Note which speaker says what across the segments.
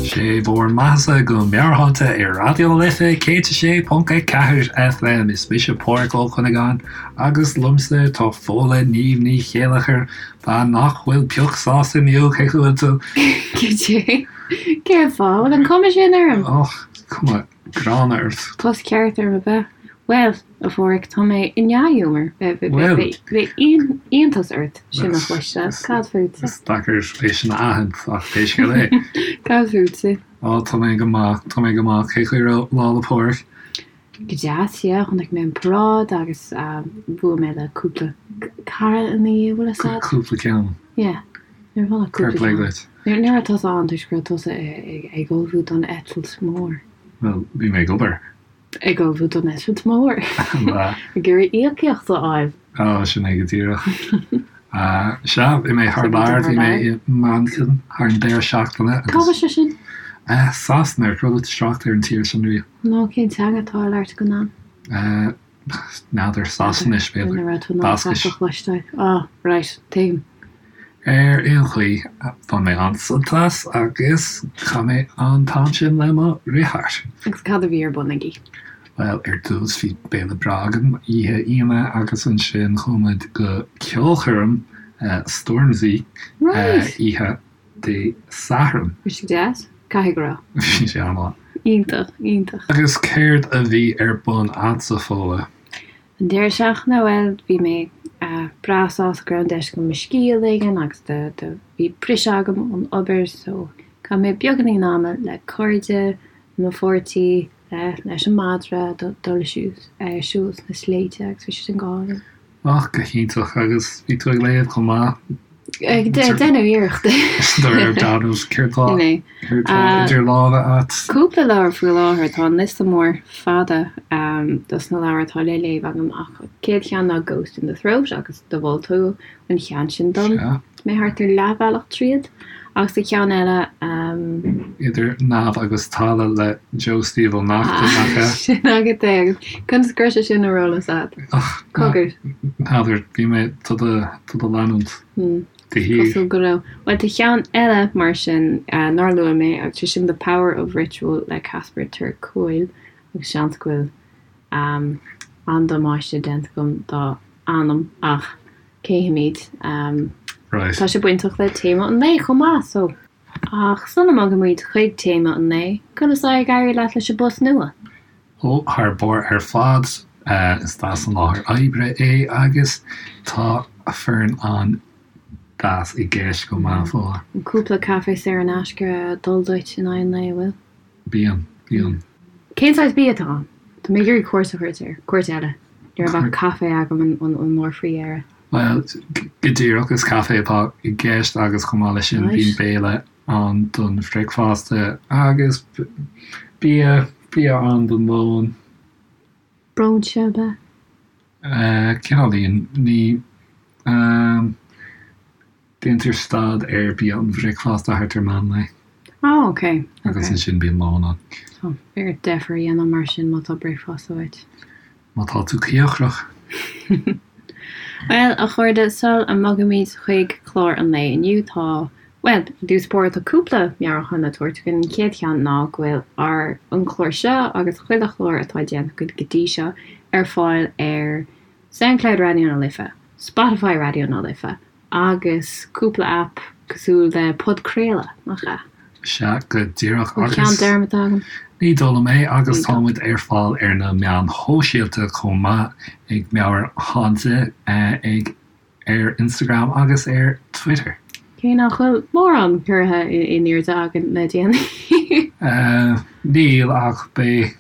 Speaker 1: Sé bhur mbeathasa go Meabhairshláinte ar Raidió na Life 106.4 FM. Is mise Pádhraic Ó Cuinneagáin agus liomsa tá Fódhla Niamh Ní Chéilleachair, bean nach bhfuil pioc sásta inniu, cén chaoi a bhfuil tú?
Speaker 2: Goidé? Cén fáth a bhfuil an cuma sin orm?
Speaker 1: Och, cuma gránna ort.
Speaker 2: Tost ceart orm ab ea? Bhuel, a Pháraic, tá mé i ndea-ghiúmar.
Speaker 1: Bhuel.
Speaker 2: Bheadh iontas ort sin a chloisteáil. Cad fútsa?
Speaker 1: Is deacair é sin a aithint, ach pé scéal é.
Speaker 2: Cad fútsa?
Speaker 1: Á, tá mé go maith, tá mé go maith. Cén chaoi a raibh Lá 'le Pádraig?
Speaker 2: Go deas, yeah. Chonaic mé an paráid agus bhuail mé le cúpla cara ina dhiaidh, bhfuil a fhios a'd?
Speaker 1: Cúpla ceann.
Speaker 2: Yeah. Ní raibh ann ach
Speaker 1: Fair
Speaker 2: cúpla
Speaker 1: play
Speaker 2: ceann.
Speaker 1: duit.
Speaker 2: Ní raibh tusa ann toisc go raibh tusa ag ullmhú don eitilt mhór.
Speaker 1: Bhuel, bhí mé ag obair.
Speaker 2: Ag ullmhú don eitilt mhór. Ag iarraidh íocaíocht a fháil.
Speaker 1: Á, sin é go díreach. Sea, bhí mé thar lear, bhí mé i Manchain thar an deireadh seachtaine
Speaker 2: Cá bhfuil sé sin?
Speaker 1: Sasana, ar chuala tú trácht ar an tír sin riamh?
Speaker 2: No, cén teanga atá á labhairt againn ann?
Speaker 1: N'fheadar, Sasanais, b'fhéidir.
Speaker 2: Ní raibh tú in ann
Speaker 1: Bascais.
Speaker 2: a chloisteáil. Ah, right, tuigim.
Speaker 1: Ar aon chaoi, bhain mé an-sult as agus chaith mé an t-am sin le mo dheartháir.
Speaker 2: Agus cad a bhí ar bun agaibh?
Speaker 1: Bhuel, ar dtús bhí béile breá agam oíche Aoine agus ansin chuaigh muid go ceolchoirm Stormzy oíche Dé Sathairn.
Speaker 2: Bhí sé deas? Caithfidh go raibh.
Speaker 1: Bhí sé an-mhaith.
Speaker 2: Iontach, iontach.
Speaker 1: Agus céard a bhí ar bun a'dsa, Fódhla?
Speaker 2: An deireadh seachtaine, bhuel, bhí mé breá sásta go raibh an deis agam mo scíth a ligean agus do, do, bhí briseadh agam ón obair so chaith mé beagáinín ama le cairde, le mo pháirtí, le, leis an madra, dul ar siúl sna sléibhte agus bhí sé sin go hálainn.
Speaker 1: Ach go hiontach, agus bhí tú ag léamh chomh maith?
Speaker 2: Ag déanamh iarrachta.
Speaker 1: De réir dealraimh, céard tá céard tá idir lámha a't?
Speaker 2: Cúpla leabhar faoi láthair, tá an liosta mór fada dos na leabhair atá le léamh agam ach an chéad cheann ná Ghost in the Throat agus do mhol tú an cheann sin dom.
Speaker 1: Sea.
Speaker 2: Mé thart ar leathbhealach tríd agus an ceann eile.
Speaker 1: Idir Neamh agus Talamh le Joe Steve Ó Neachtain, nach ea?
Speaker 2: Sin agat é agus conas go raibh sé sin ar eolas agat? Cogar.
Speaker 1: N'fheadar, bhí mé do do leanúint de shíor.
Speaker 2: Cosúil go raibh. Bhuel tá ceann eile mar sin nár luaigh mé agus sé sin The Power of Ritual le Casper ter Kuile agus seans go bhfuil an-damáiste déanta agam dá ainm ach Cífimid. Tá sé bainteach le téama an lae chomh maith, so. Ach sula mbogaimid chuig téama an lae, conas tá ag éirí leat leis an bpost nua?
Speaker 1: Ó, thar barr ar fad. Is deas an láthair oibre é agus tá foireann an-deas i gceist chomh maith, Fódhla.
Speaker 2: Cúpla caife saor in aisce ag dul duit in aghaidh an lae, an bhfuil?
Speaker 1: Bíonn, bíonn.
Speaker 2: Cén saghas bia atá ann? Tá mé ag iarraidh cuairt a thabhairt air, cuairt eile. Ní raibh ach caife agam an uair faoi dheireadh.
Speaker 1: Bhuel, go díreach, is caife atá i gceist agus chomh maith leis sin bíonn béile ann don bhricfeasta agus bia, bia ann don lón.
Speaker 2: Bróinse ab ea?
Speaker 1: Cineáilín, ní. Déantar stad ar bia an bhricfeasta thart ar meán lae.
Speaker 2: Ah, ok, ok.
Speaker 1: Agus ansin bíonn lón ann.
Speaker 2: Tá ort deifir a dhéanamh mar sin má tá bricfeasta uait.
Speaker 1: Má tá tú cíocrach.
Speaker 2: Bhuel, a chairde, sul a mbogaimid chuig clár an lae inniu, tá, bhuel, i dtús báire tá cúpla meabhrúchán le tabhairt againn. An chéad cheann ná go bhfuil ár, an clár seo agus chuile chlár atá déanta againn go dtí seo ar fáil ar Soundcloud Raidió na Life, Spotify Raidió na Life, agus cúpla aip cosúil le podchraoladh, nach ea?
Speaker 1: Sea, go díreach,
Speaker 2: Bhfuil
Speaker 1: agus.
Speaker 2: ceann dearmadta agam?
Speaker 1: Ní dóigh liom é, agus tá muid ar fáil ar na meáin shóisialta chomh maith, ag Meabhairshláinte ag ar Instagram agus ar Twitter.
Speaker 2: Cé nach bhfuil mórán curtha in airde againn le déanaí.
Speaker 1: Níl, ach beidh.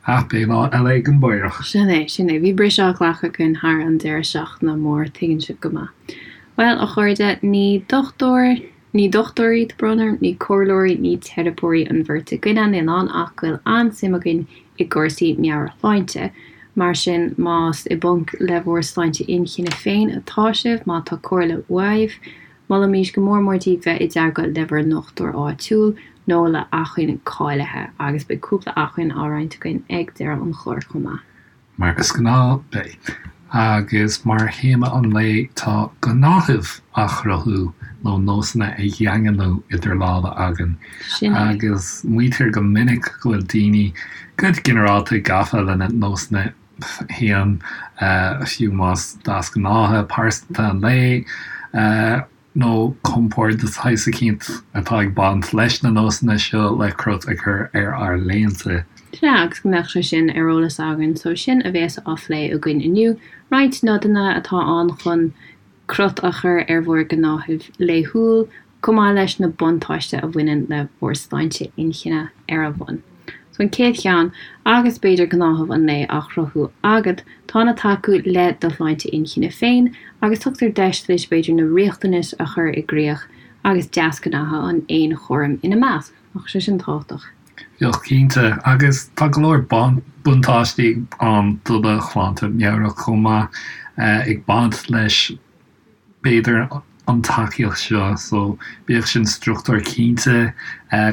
Speaker 1: Ach beidh lá eile ag an bPaorach.
Speaker 2: Sin é, sin é. Bhí briseadh á ghlacadh againn thar an deireadh seachtaine mór, tuigeann sibh go maith. Bhuel, a chairde, ní dochtúir, ní dochtúirí, tá brón orm, ní comhairleoirí, ní teiripeoirí an bheirt againne, níl ann ach go bhfuil an-suim againn i gcúrsaí meabhairshláinte. Mar sin, más i bponc le bhur sláinte inchinne féin atá sibh, má tá comhairle uaibh. molaimís go mór mór daoibh bheith i dteagmháil le bhur ndochtúir áitiúil nó le hacmhainn cáilithe agus beidh cúpla acmhainn á roinnt againn ag deireadh an chláir chomh maith.
Speaker 1: Mar is gnáth, beidh. Agus mar théama an lae tá gnáthaimh a chruthú nó nósanna a dhaingniú idir lámha againn.
Speaker 2: Sin é.
Speaker 1: Agus maítear go minic go bhfuil daoine go ginearálta gafa lena nósanna féin, fiú más deasghnátha pearsanta an lae, nó compord de shaghas eicínt atá ag baint leis na nósanna seo le crot a chur ar ár laethanta.
Speaker 2: Sea, agus go mbeadh sé sin ar eolas againn, so sin a bhéas á phlé againn inniu, roinnt nodanna atá ann chun crot a chur ar bhur gnáthamh laethúil, chomh maith leis na buntáiste a bhaineann le bhur sláinte inchinne ar a bhun. So an chéad cheann, agus b'fhéidir gnáthamh an lae á chruthú agat, tá ina tacú le do shláinte inchinne féin agus tugtar deis duit b'fhéidir na riachtanais a chur i gcrích agus deasghnátha an fhéinchúraim ina measc. Nach sé sin tábhachtach?
Speaker 1: Bheadh cinnte, agus tá go leor buntáistí ann do do shláinte meabhrach chomh maith ag baint leis b'fhéidir, an tacaíocht seo so bíodh sin struchtúr cinnte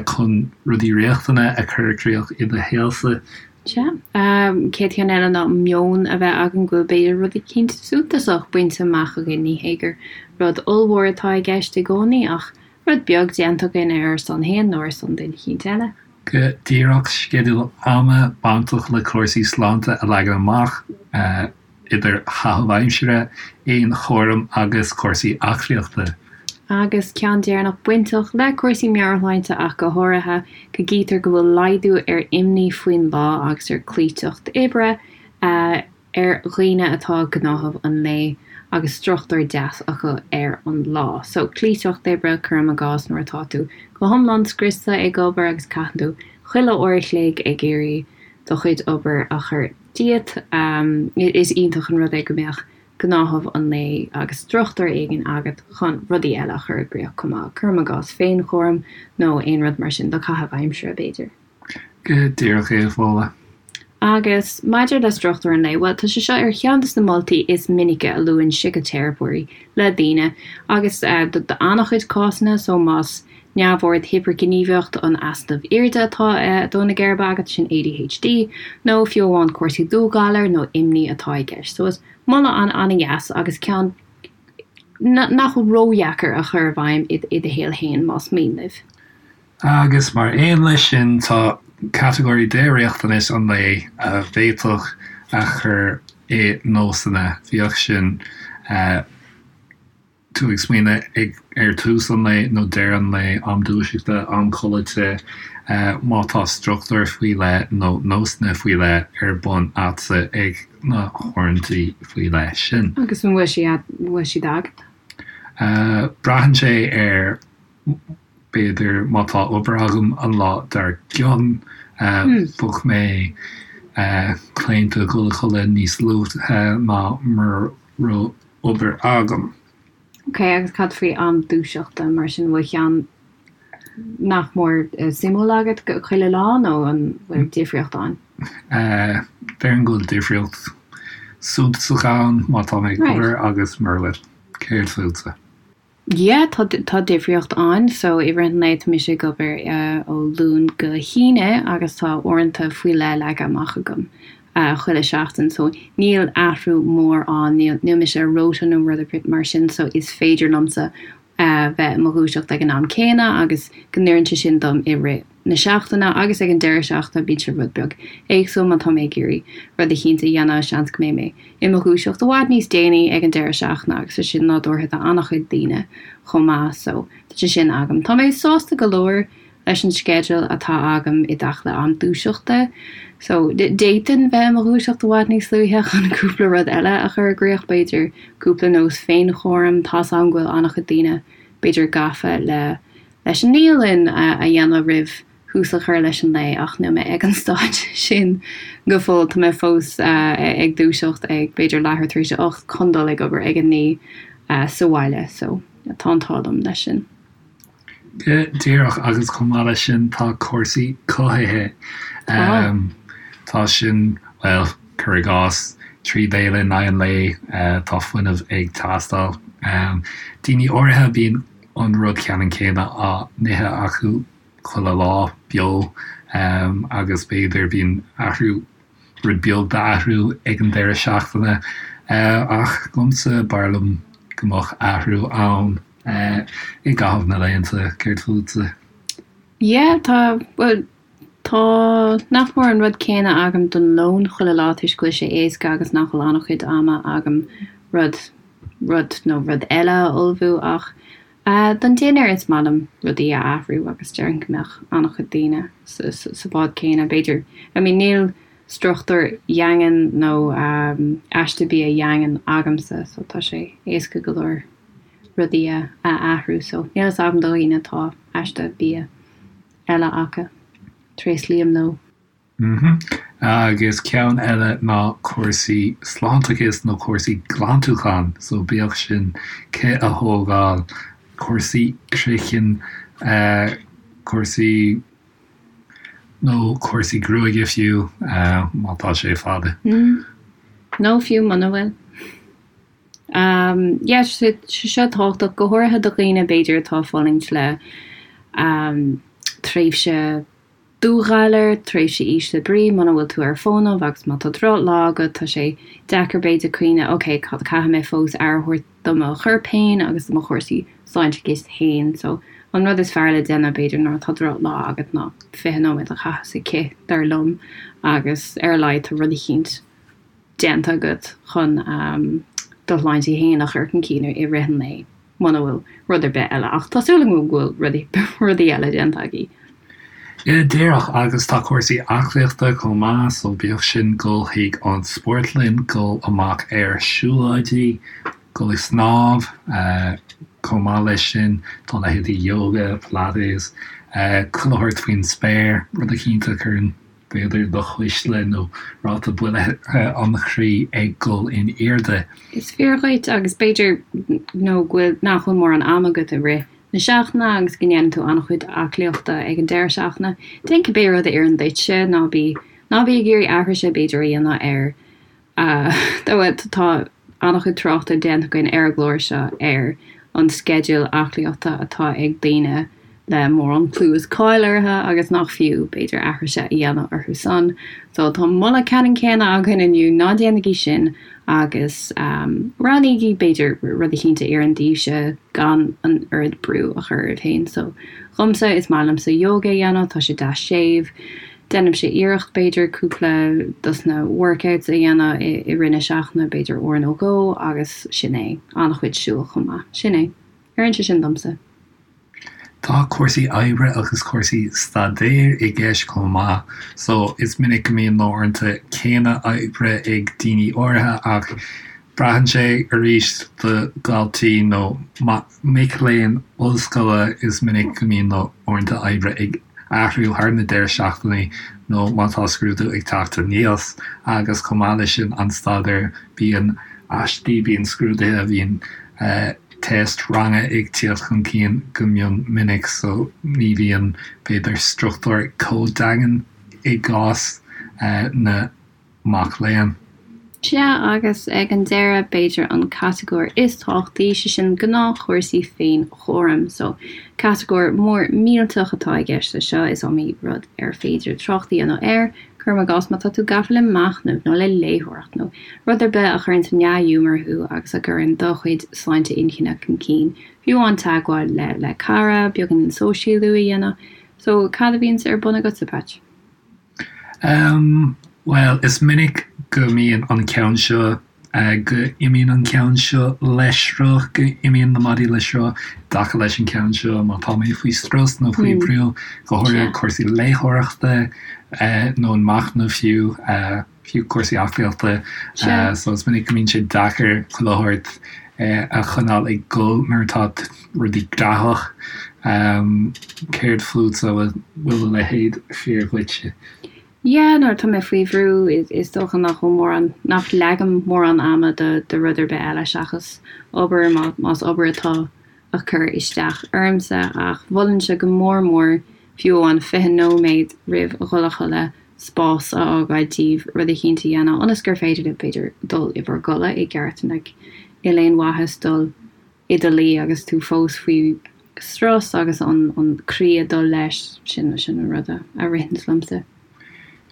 Speaker 1: chun rudaí riachtana a chur i gcrích i do shaolsa.
Speaker 2: Sea. Chéad cheann eile ná meon a bheith againn go bhfuil b'fhéidir rud eicínt suntasach bainte amach againn, ní hé gur rud ollmhór atá i gceist i gcónaí ach rud beag déanta againn ar ár son féin nó ar son duine eicínt eile.
Speaker 1: Go díreach, sceideal ama bainteach le cúrsaí sláinte a leagan amach. idir chaitheamh aimsire, fhéinchúram agus cúrsaí aclaíochta.
Speaker 2: Agus ceann deireanach bainteach le cúrsaí meabhairshláinte ach go háirithe, go gcítear go bhfuil laghdú ar imní faoin lá agus ar cloíteacht oibre ar dhaoine atá gnáthamh an lae agus struchtúr deas acu ar an lá. So, cloíteacht oibre, cuirim i gcás, nuair atá tú go hiomlán scriosta ag obair agus caitheann tú chuile uair a chloig ag iarraidh do chuid obair a chur díot. Is iontach an rud é go mbeadh gnáthamh an lae agus struchtúr éigin agat chun rudaí eile a chur i gcrích chomh maith, cuirim i gcás féinchúram nó aon rud mar sin do chaitheamh aimsire, b'fhéidir.
Speaker 1: Go díreach é, a Fódhla.
Speaker 2: Agus maidir le struchtúr an lae, bhuel, tá sé seo ar cheann de na moltaí is minice a luann síciteiripeoirí le daoine agus do an-chuid cásanna, so más neamhord hipirghníomhaíocht an easnaimh airde atá ag dó na geirbe agat, sin ADHD, nó fiú amháin cúrsaí dúghalair nó imní atá i gceist. So is moladh an-an-dheas agus ceann nach bhfuil ródheacair a chur i bhfeidhm i do shaol féin más mian libh.
Speaker 1: Agus mar aon leis sin tá catagóirí de riachtanais an lae a bhféadfadh a chur i nósanna, bíodh sin tú ag smaoineamh ag ar tús an lae nó deireadh an lae, am dúiseachta, am codlata, má tá struchtúr faoi leith nó nósanna faoi leith ar bun a'dsa ag na huaireanta faoi leith sin.
Speaker 2: Agus an bhfuil siad, bhfuil siad agat?
Speaker 1: Braitheann sé ar, b'fhéidir, má tá obair agam an lá dár gcionn, bheadh mé claonta dul a chodladh níos luaithe ná mura raibh obair agam.
Speaker 2: Ok, agus cad faoi am dúiseachta mar sin, bhfuil ceann nach mór suimiúil agat chuile lá nó an bhfuil difríocht ann?
Speaker 1: Déarfainn go bhfuil difríocht suntasach ann má tá mé ag obair agus mura bhfuil. Céard fútsa?
Speaker 2: Yeah, tá tá difríocht ann. So i rith an lae tá mise ag obair ó Luan go hAoine agus tá uaireanta faoi leith leagtha amach agam chuile seachtain. So níl athrú mór ann, níl níl mise ar rota nó rud ar bith mar sin so is féidir liomsa bheith i mo dhúiseacht ag an am céanna agus go n-oireann sé sin dom i rith na seachtaine agus ag an deireadh seachtaine bíonn sé rud beag éagsúil má tá mé ag iarraidh rud eicínt a dhéanamh, seans go mbeidh mé i mo dhúiseacht i bhfad níos déanaí ag an deireadh seachtaine agus tá sin nádúrtha do an-chuid daoine chomh maith so tá sé sin agam. Tá mé sásta go leor leis an sceideal atá agam i dtaca le am dúiseachta so d'fhéadfainn bheith i mo dhúiseacht i bhfad níos luaithe chun cúpla rud eile a chur i gcrích, b'fhéidir cúpla nós féinchúraim, tá's agam go bhfuil an-chuid daoine b'fhéidir gafa le leis an naíolann a dhéanamh roimh thús a chur leis an lae ach níl mé ag an staid sin go fóill. Tá mé fós ag dúiseacht ag b'fhéidir leathuair tar éis a 8 chun dul ag obair ag a 9 sa bhaile so tá an t-ádh liom leis sin.
Speaker 1: Go díreach agus chomh maith leis sin tá cúrsaí cothaithe. Tá. Tá sin, bhuel, cuir i gcás. 3 bhéile in aghaidh an lae, tá fuinneamh ag teastáil. Daoine áirithe, bíonn an rud ceannann céanna á n-ithe acu chuile lá beo agus b'fhéidir bíonn athrú, rud beag d'athrú ag an deireadh seachtaine. Ach dhomsa, b'fhearr liom go mbeadh athrú ann i gcaitheamh na laethanta. Céard fútsa?
Speaker 2: Yeah, tá, bhuel, tá nach mór an rud céanna agam don lón chuile lá toisc go bhfuil sé éasca agus nach bhfuil an-chuid ama agam rud, rud nó rud eile a ullmhú ach don dinnéar is maith liom rudaí a athrú agus déarfainn go mbeadh an-chuid daoine sa, sa bhád céanna b'fhéidir. I mean níl struchtúr dhaingean nó aiste bia dhaingean agamsa so tá sé éasca go leor rudaí a athrú so níl fhios agam do dhaoine atá aiste bia eile acu. Tréaslaím leo.
Speaker 1: Mm-hmm. Agus ceann eile ná cúrsaí sláinteachais nó cúrsaí glantúcháin, so bíodh sin cith a thógáil, cúrsaí craicinn, cúrsaí nó cúrsaí gruaige fiú, má tá sé fada.
Speaker 2: Mm. Nó fiú muna bhfuil. Yeah, sé seo tábhachtach, go háirithe do dhaoine b'fhéidir atá ag fulaingt le tréimhse dúghalair, tréimhse ísle brí, muna bhfuil tú ar fónamh agus má tá drochlá agat, tá sé deacair b'fhéidir cuimhneamh ok, caithfidh mé fós aire a thabhairt do mo chorp féin agus do mo chúrsaí sláinteachais féin. So an rud is fearr le déanamh b'fhéidir nuair atá drochlá agat ná 20 nóiméad a chaitheamh sa chith, dar liom, agus ar a laghad tá rud eicínt déanta agat chun do shláinte féin a chur chun cinn i rith an lae, muna bhfuil rud ar bith eile. Ach tá súil agam go bhfuil rudaí eile déanta agaibh.
Speaker 1: Yeah, díreach, agus tá cúrsaí aclaíochta chomh maith, so bíodh sin dul chuig an spórtlann, dul amach ar siúlóidí, dul ag snámh, chomh maith leis sin tá leithéidí yoga, pilates, chuile shórt faoin spéir, rud eicínt a chuireann b'fhéidir do chuisle nó ráta buille an chroí ag dul in airde.
Speaker 2: Is fíor dhuit agus b'fhéidir nó go bhfuil, nach bhfuil mórán ama agat i rith na seachtaine agus go ndéanann tú an-chuid aclaíochta ag an deireadh seachtaine. Déan cibé rud a oireann duitse, ná bí, ná bí ag iarraidh aithrise b'fhéidir a dhéanamh ar Tá an-chuid tráchta déanta againn ar an gclár seo ar an sceideal aclaíochta atá ag daoine le mórán clú is cáil orthu agus nach fiú, b'fhéidir, aithrise a dhéanamh orthu san. So tá moladh ceannann céanna againn inniu, ná déanaigí sin agus roghnaígí, b'fhéidir, rud eicínt a oireann daoibhse gan an oiread brú a chur oraibh féin. So dhomsa, is maith liomsa yoga a dhéanamh, tá sé deas séimh. Déanaimse iarracht, b'fhéidir, cúpla dos na workouts a dhéanamh i rith na seachtaine, b'fhéidir uair nó dhó, agus sin é. An-chuid siúil chomh maith. Sin é. Oireann sé sin domsa.
Speaker 1: Tá cúrsaí oibre agus cúrsaí staidéir i gceist chomh maith. So, is minic go mbíonn na huaireanta céanna oibre ag daoine áirithe ach Braitheann sé arís do dhaltaí nó mic léinn ollscoile, is minic go mbíonn na huaireanta oibre ag athrú thar na deireadh seachtainí nó má tá scrúdú ag teacht aníos agus chomh maith leis sin an staidéar, bíonn aistí, bíonn scrúduithe, bíonn teist ranga ag tíocht chun cinn go mion minic so ní bhíonn b'fhéidir struchtúr chomh daingean i gcás na mac léinn.
Speaker 2: Sea, agus ag an deireadh, b'fhéidir an catagóir is tábhachtaí, sé sin gnáthchúrsaí féinchúraim. So, catagóir mór millteach atá i gceist leis seo, is iomaí rud ar féidir trácht a dhéanamh air, cuirim i gcás má tá tú gafa le machnamh nó le léitheoireacht nó rud ar bith a chuireann sa ndea-ghiúmar thú agus a gcuireann do chuid sláinte inchinne chun cinn, fiú amháin teagmháil le le cara, beagáinín sóisialú a dhéanamh. So, cad a bhíonns ar bun agatsa, Patch?
Speaker 1: Em, bhuel, is minic go mbíonn an ceann seo, go imíonn an ceann seo le sruth, go imíonn na maidí le sruth i dtaca leis an ceann seo má tá mé faoi strus nó faoi bhrú, go háirithe cúrsaí léitheoireachta nó an machnamh fiú. fiú cúrsaí aclaíochta. So is minic go mbíonn sé deacair chuile shórt a choinneáil ag dul nuair atá rudaí graitheach. Céard fútsa, bhfuil a leithéid fíor dhuitse?
Speaker 2: Yeah, nuair atá mé faoi bhrú is dócha nach bhfuil mórán, nach leagaim mórán ama do do rud ar bith eile seachas obair, más obair atá ag cur isteach ormsa ach mholfainnse go mór mór fiú amháin 20 nóiméad roimh dhul a chodladh. spás a fhágáil daoibh rud eicínt a dhéanamh ionas gur féidir libh, b'fhéidir, dul i bhur gcodladh i gceart. Like, níl aon mhaitheas dul i do luí agus tú fós faoi strus agus an an croí ag dul leis, sin sin an rud a a ritheanns liomsa.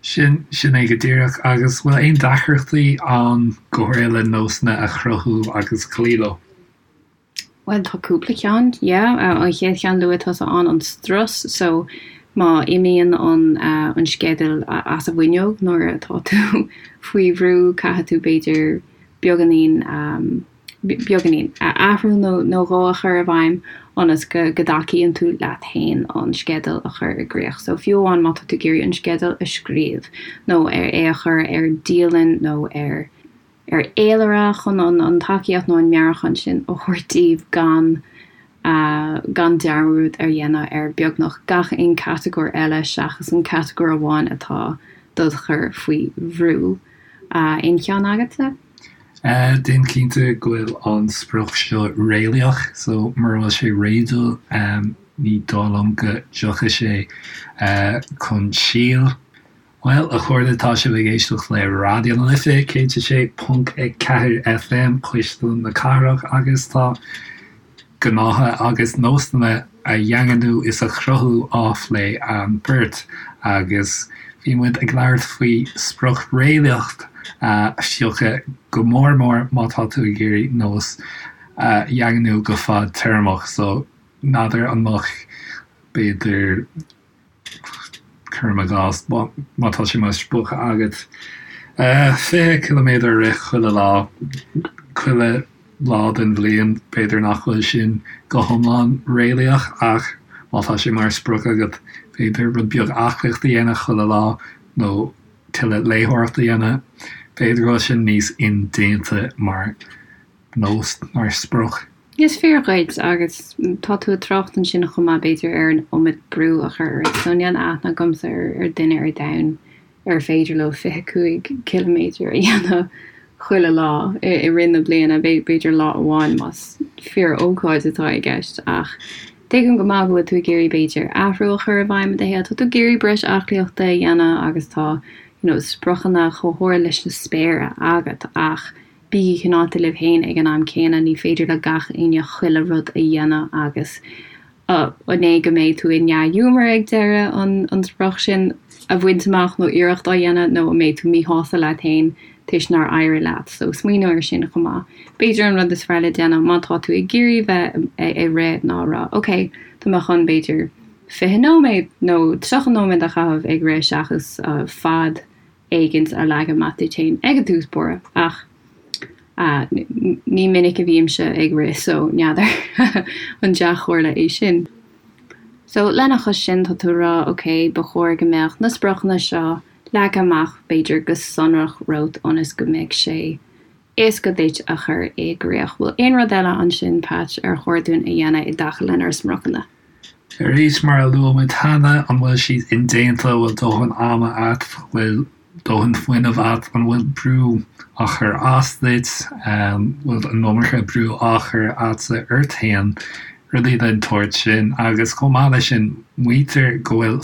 Speaker 1: Sin sin é go díreach. Agus bhfuil aon deacrachtaí ann go háirithe le nósanna a chruthú agus cloí leo?
Speaker 2: Bhuel, tá cúpla ceann, yeah. An chéad cheann luaigh tusa ann, an strus. So, má imíonn an an sceideal as an bhfuinneog nuair atá tú faoi bhrú, caithfidh tú b'fhéidir beagáinín, beagáinín, athrú nó nó dhó a chur i bhfeidhm ionas go go dtacaíonn tú leat féin an sceideal a chur i gcrích. So, fiú amháin má tá tú ag iarraidh an sceideal a scríobh nó ar é a chur ar dialann nó ar ar fhéilire chun an an tacaíocht nó an meabhrúchán sin a thabhairt daoibh gan gan dearmad a dhéanamh ar beagnach gach aon catagóir eile seachas an catagóir amháin atá dod chur faoi bhrú. Aon cheann agatsa?
Speaker 1: Déan cinnte go bhfuil an sprioc seo réalaíoch, so mura bhfuil sé réadúil ní dóigh liom go dtiocfaidh sé chun síl. Bhuel, a chairde, tá sibh ag éisteacht le Raidió na Life 106.4 FM, Cuisle na Cathrach, agus tá gnátha agus nósanna a dhaingniú is a chruthú á phlé againn beirt. Agus bhí muid ag labhairt faoi sprioc réalaíoch a phiocadh, go mór mór má tá tú ag iarraidh nós a dhaingniú go fadtéarmach. So, n'fheadar an mbeadh, b'fhéidir, Cuirim i gcás, má tá sé mar sprioc agat 20 ciliméadar a rith chuile lá, chuile lá den bhliain, b'fhéidir nach bhfuil sin go hiomlán réalaíoch ach má tá sé mar sprioc agat, b'fhéidir rud beag aclaíochta a dhéanamh chuile lá nó tuilleadh léitheoireachta a dhéanamh, b'fhéidir go bhfuil sin níos indéanta mar nós, mar sprioc.
Speaker 2: Is fíor dhuit, agus tá tú ag trácht ansin chomh maith, b'fhéidir, ar an iomad brú a chur ort. So níl aithne agamsa ar duine ar domhan ar féidir leo 25 ciliméadar a dhéanamh chuile lá i rith na bliana, b'fhéidir lá amháin más fíor-ócáid atá i gceist. Ach tuigim go maith go bhfuil tú ag iarraidh, b'fhéidir, athrú a chur i bhfeidhm i do shaol. Tá tú ag iarraidh breis aclaíochta a dhéanamh agus tá, you know, spriocanna chomh hard leis na spéire agat ach Bígí cineálta libh féin ag an am céanna, ní féidir le gach éinne chuile rud a dhéanamh agus an é go mbeidh tú i ndea-ghiúmar ag deireadh an sprioc sin a bhaint amach nó iarracht á dhéanamh nó an mbeidh tú míshásta leat féin toisc nár éirigh leat. So smaoineamh ar sin chomh maith. B'fhéidir an rud is fearr le déanamh má tá tú ag iarraidh bheith ag rith ná rá ok, tá mé chun b'fhéidir 20 nóiméad nó 30 nóiméad a chaitheamh ag rith seachas fad éigint a leagan amach duit féin ag an tús báire ach ní minic a bhímse ag rith so n'fheadar an dea-chomhairle é sin. So lena chois sin tá tú ag rá ok ba chóir go mbeadh na spriocanna seo leagtha amach b'fhéidir go sonrach romhat ionas go mbeidh sé éasca duit a chur i gcrích. Bhfuil aon rud eile ansin Patch ar chóir dúinn a dhéanamh i dtaca lenár spriocanna?
Speaker 1: Arís, mar a luaigh muid cheana, an bhfuil siad indéanta, an bhfuil dóthain ama agat, an bhfuil dóthain fuinnimh agat, an bhfuil brú á chur as duit, an bhfuil an iomarca brú á chur agatsa ort féin, rudaí den tsórt sin. Agus chomh maith leis sin, maítear go bhfuil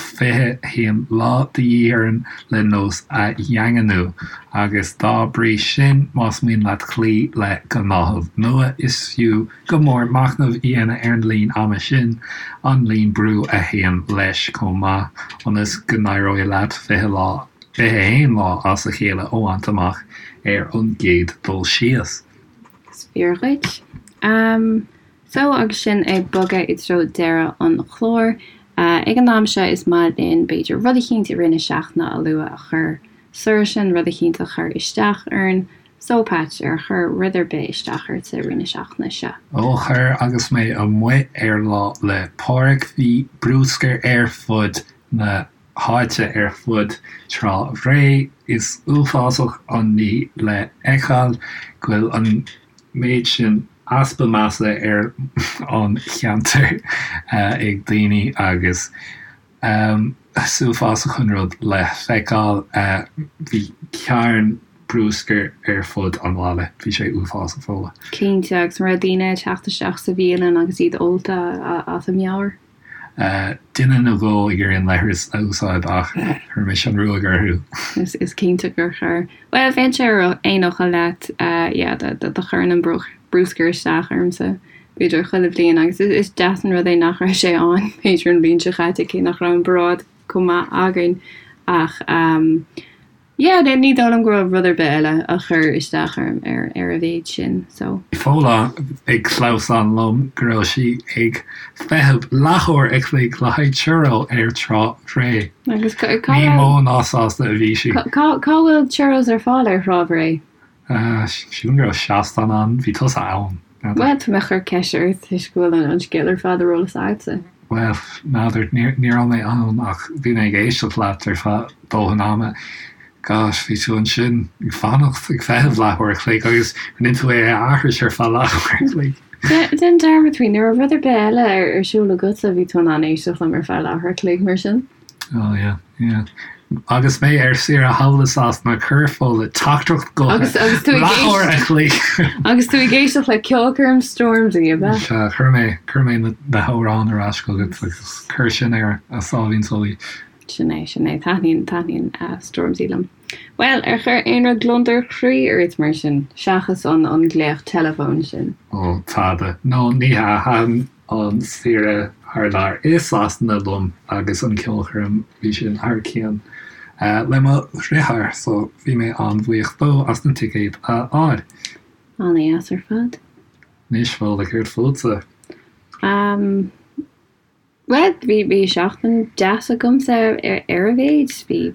Speaker 1: 21 lá de dhíth orainn le nós a dhaingniú, agus dá bhrí sin, más mian leat cloí le gnáthamh nua, is fiú go mór machnamh a dhéanamh ar an líon ama sin, an líon brú a théann leis chomh maith, ionas go n-éireoidh leat 20 lá, 21 lá as a chéile a bhaint amach ar an gcéad dul síos.
Speaker 2: Is fíor dhuit. So, agus sinn ag bogadh i dtreo deireadh an chláir, ag an am seo is maith linn, b'fhéidir, rud eicínt i rith na seachtaine a lua a chuir soir sinn, rud eicínt a chuir isteach orainn, So, Patch, ar chuir rud ar bith isteach ort i rith na seachtaine seo?
Speaker 1: Ó chuir, agus mé amuigh ar Lá 'le Pádraig, bhí bruscar ar fud na háite, ar fud Trá Bhré. Is uafásach an ní le feiceáil go bhfuil an méid sin easpa measa ar an cheantar ag daoine agus Is uafásach an rud le feiceáil. Bhí carn bruscair ar fud an bhaile. Bhí sé uafásach, Fódhla.
Speaker 2: Cinnte, agus an raibh daoine ag teacht isteach sa bhialann agus iad ólta as a meabhair?
Speaker 1: Duine nó dhó ag iarraidh an leithreas a úsáid ach chuir mise an ruaig orthu.
Speaker 2: Is cinnte gur chuir. Bhuel, bheinnse ar aon fhocal leat, yeah, do chuireann an bruscar isteach ormsa, b'fhéidir chuile bhliain agus is deas an rud é nach raibh sé ann, b'fhéidir an bhliain seo chaite, cé nach raibh an paráid chomh maith againn ach yeah, ní dóigh liom go raibh rud ar bith eile a chuir isteach orm ar ar a mhéid sin, so.
Speaker 1: Bhí Fódhla ag clamhsán liom go raibh sí ag feitheamh leathuair a chloig le haghaidh churro ar Trá Bhré.
Speaker 2: Agus cá
Speaker 1: Ní mó ná sásta a bhí sí.
Speaker 2: Cá bhfuil churros ar fáil ar Thrá Bhré?
Speaker 1: Sílim go raibh seastán ann, bhí tusa ann.
Speaker 2: Bhuel, tá mé ag cur ceiste ort toisc go bhfuil an scéal ar fad ar eolas agatsa.
Speaker 1: Bhuel, n'fheadar, ní raibh mé ann ach bhí mé ag éisteacht leat ar feadh dóthain ama. Gosh, bhí tú ansin ag fanacht, ag feitheamh leathuair a chloig agus rinne tú é a aithris ar feadh leathuair a chloig.
Speaker 2: Déan dearmad faoi, ní raibh rud ar bith eile ar siúl agatsa, bhí tú in ann éisteacht liom ar feadh leathuair a chloig mar sin.
Speaker 1: Oh yeah, yeah. Agus mé ar saoire thall i Sasana, chuir Fódhla teachtaireacht gutha
Speaker 2: Agus agus tú ag
Speaker 1: leathuair a chloig.
Speaker 2: Agus tú ag éisteacht le ceolchoirm Stormzy, ab
Speaker 1: ea? Sea, chuir mé, chuir mé na, na hamhráin ar ais chugat agus chuir sin ar a sáimhín só í.
Speaker 2: Sin é, sin é. Taitníonn, taitníonn Stormzy liom. Bhuel, ar chuir aon rud gliondar croí ort mar sin, seachas an, an glaoch teileafóin sin?
Speaker 1: Ó, tada. No, ní hea, thaitin an saoire thar lear i Sasana liom agus an ceolchoirm, bhí sin thar cionn le mo dhriotháir so bhí mé an-bhuíoch dó as na ticéid a fháil.
Speaker 2: An-dheas ar fad.
Speaker 1: Anois, Fódhla, céard fútsa?
Speaker 2: Umm, bhuel, bhí, bhí seachtain deas agamsa ar, ar a mhéid. Bhí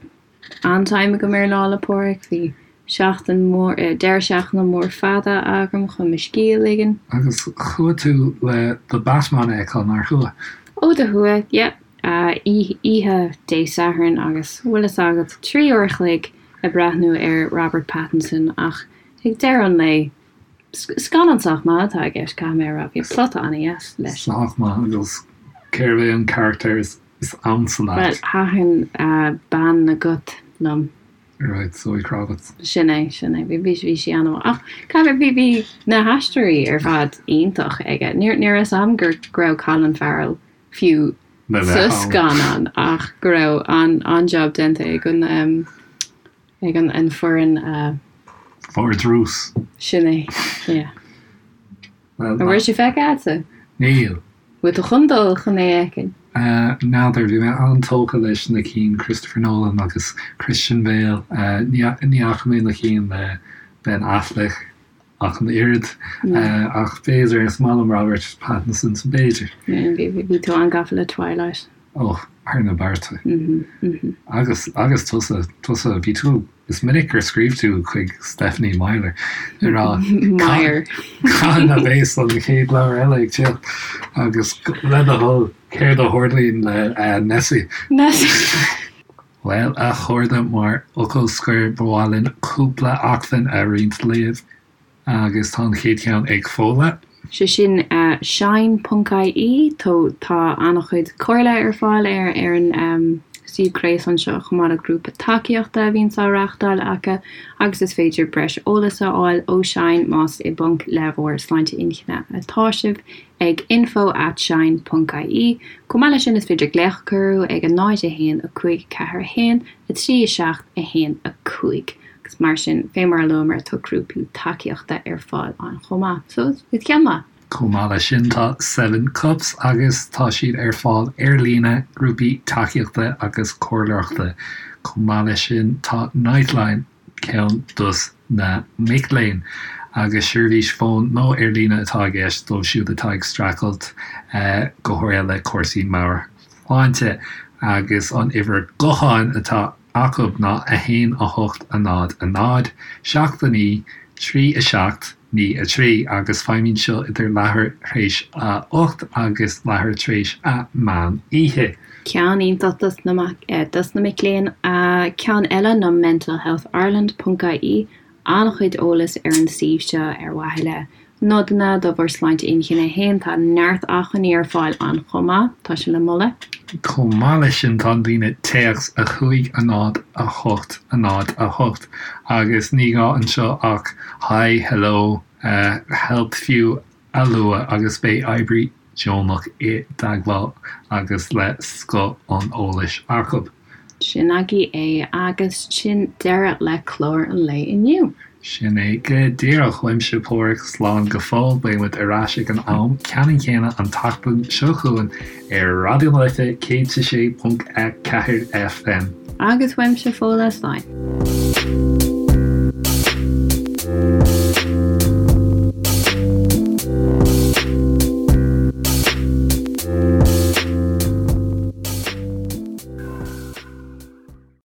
Speaker 2: an-time agam ar Lá 'le Pádraig. Bhí seachtain mór, deireadh seachtaine mór fada agam chun mo scíth a ligean.
Speaker 1: Agus chuaigh tú le The Batman a fheiceáil, nár chuaigh?
Speaker 2: Ó do chuaigh, yeah. Oíche Dé Sathairn agus, bhfuil fhios agat, 3 uair a chloig ag breathnú ar Robert Pattinson ach ag deireadh an lae, scannán sách maith atá i gceist, caithfidh mé a rá. Bhí plota an-dheas leis.
Speaker 1: Sách maith agus cérbh é an carachtar is ansa
Speaker 2: leat? Bhuel, thaitin bean na gCat liom.
Speaker 1: Right, Zoe Kravitz.
Speaker 2: Sin é, sin é. Bhí, bhí sí an-mhaith. Ach caithfidh, bhí, bhí na haisteoirí ar fad iontach aige. Ní, ní raibh fhios a'm gur, go raibh Colin Farrell fiú
Speaker 1: Le
Speaker 2: sa
Speaker 1: bheith ann.
Speaker 2: scannán ach go raibh an, an-job déanta ag an, em, ag an, an foireann a.
Speaker 1: Vardrús.
Speaker 2: Sin é, yeah.
Speaker 1: Bhuel,
Speaker 2: An bhfuil sé feicthe a'dsa?
Speaker 1: Níl.
Speaker 2: Bhfuil tú chun dul chun é a fheiceáil?
Speaker 1: N'fheadar, bhí mé an-tógtha leis na cinn Christopher Nolan agus Christian Bale. Ní fhaca mé na cinn le Ben Affleck ach an oiread. Ach b'fhéidir, is maith liom Robert Pattinson, so b'fhéidir.
Speaker 2: Bhí tú an-gafa le Twilight.
Speaker 1: Ó, thar na bearta. Agus, agus tusa, tusa, bhí tú, is minic gur scríobh tú chuig Stephenie Meyer ag rá,
Speaker 2: Meyer.
Speaker 1: Cathain a bheas an chéad leabhar eile ag teacht? Agus le do thoil, céard a tharlaíonn le Nessie?
Speaker 2: Nessie.
Speaker 1: Bhuel, a chairde, mar fhocal scoir, ba mhaith linn cúpla acmhainn a roinnt libh. Agus tá an chéad cheann ag Fódhla.
Speaker 2: Sé sin shine ponc ie. Tá an-chuid comhairle ar fáil ar ar an suíomh gréasáin seo chomh maith le grúpa tacaíochta a bhíonns á reáchtáil acu agus is féidir breis eolais a fháil ó Shine más i bponc le bhur sláinte inchinne atá sibh ag info at shine ponc ie. Chomh maith leis sin is féidir glaoch a chur orthu ag 0 1 5 4 1 3 7 1 5. Agus mar sin, fé mar a luamar, tá grúpaí tacaíochta ar fáil ann chomh maith. So, is ceann maith.
Speaker 1: Chomh maith leis sin, tá Seven Cups agus tá siad ar fáil ar líne, grúpaí tacaíochta agus comhairleoireachta. Chomh maith leis sin, tá Nightline, ceann dos na mic léinn, agus seirbhís fóin nó ar líne atá i gceist dóibh siúd atá ag streachailt go háirithe le cúrsaí meabhairshláinte agus an uimhir gutháin atá acu ná 1 8 0 0 7 9 3 7 9 3 agus feidhmíonn seo idir leathuair tar éis a 8 agus leathuair tar éis a meán oíche.
Speaker 2: Ceann iontach dos na dos na mic léinn. Ceann eile ná mentalhealthireland ponc ie. An-chuid eolas ar an suíomh seo ar mhaithe le nodanna do bhur sláinte inchinne féin. Tá neart acmhainní ar fáil ann chomh maith. Tá sé le moladh.
Speaker 1: Chomh maith leis sin tá an líne téacs 5 0 8 0 8 agus ní gá anseo ach Hi, Hello, Help fiú a lua agus beidh oibrí. deonach i dteagmháil agus le scoth an eolais acu.
Speaker 2: Sin agaibh é agus sin deireadh le clár an lae inniu.
Speaker 1: Sin é go díreach. Uaimse Páraic, slán go fóill. Beidh muid ar ais ag an am ceannann céanna an tseachtain seo chugainn ar Raidió na Life 106.4 FM.
Speaker 2: Agus uaimse Fódhla, slán.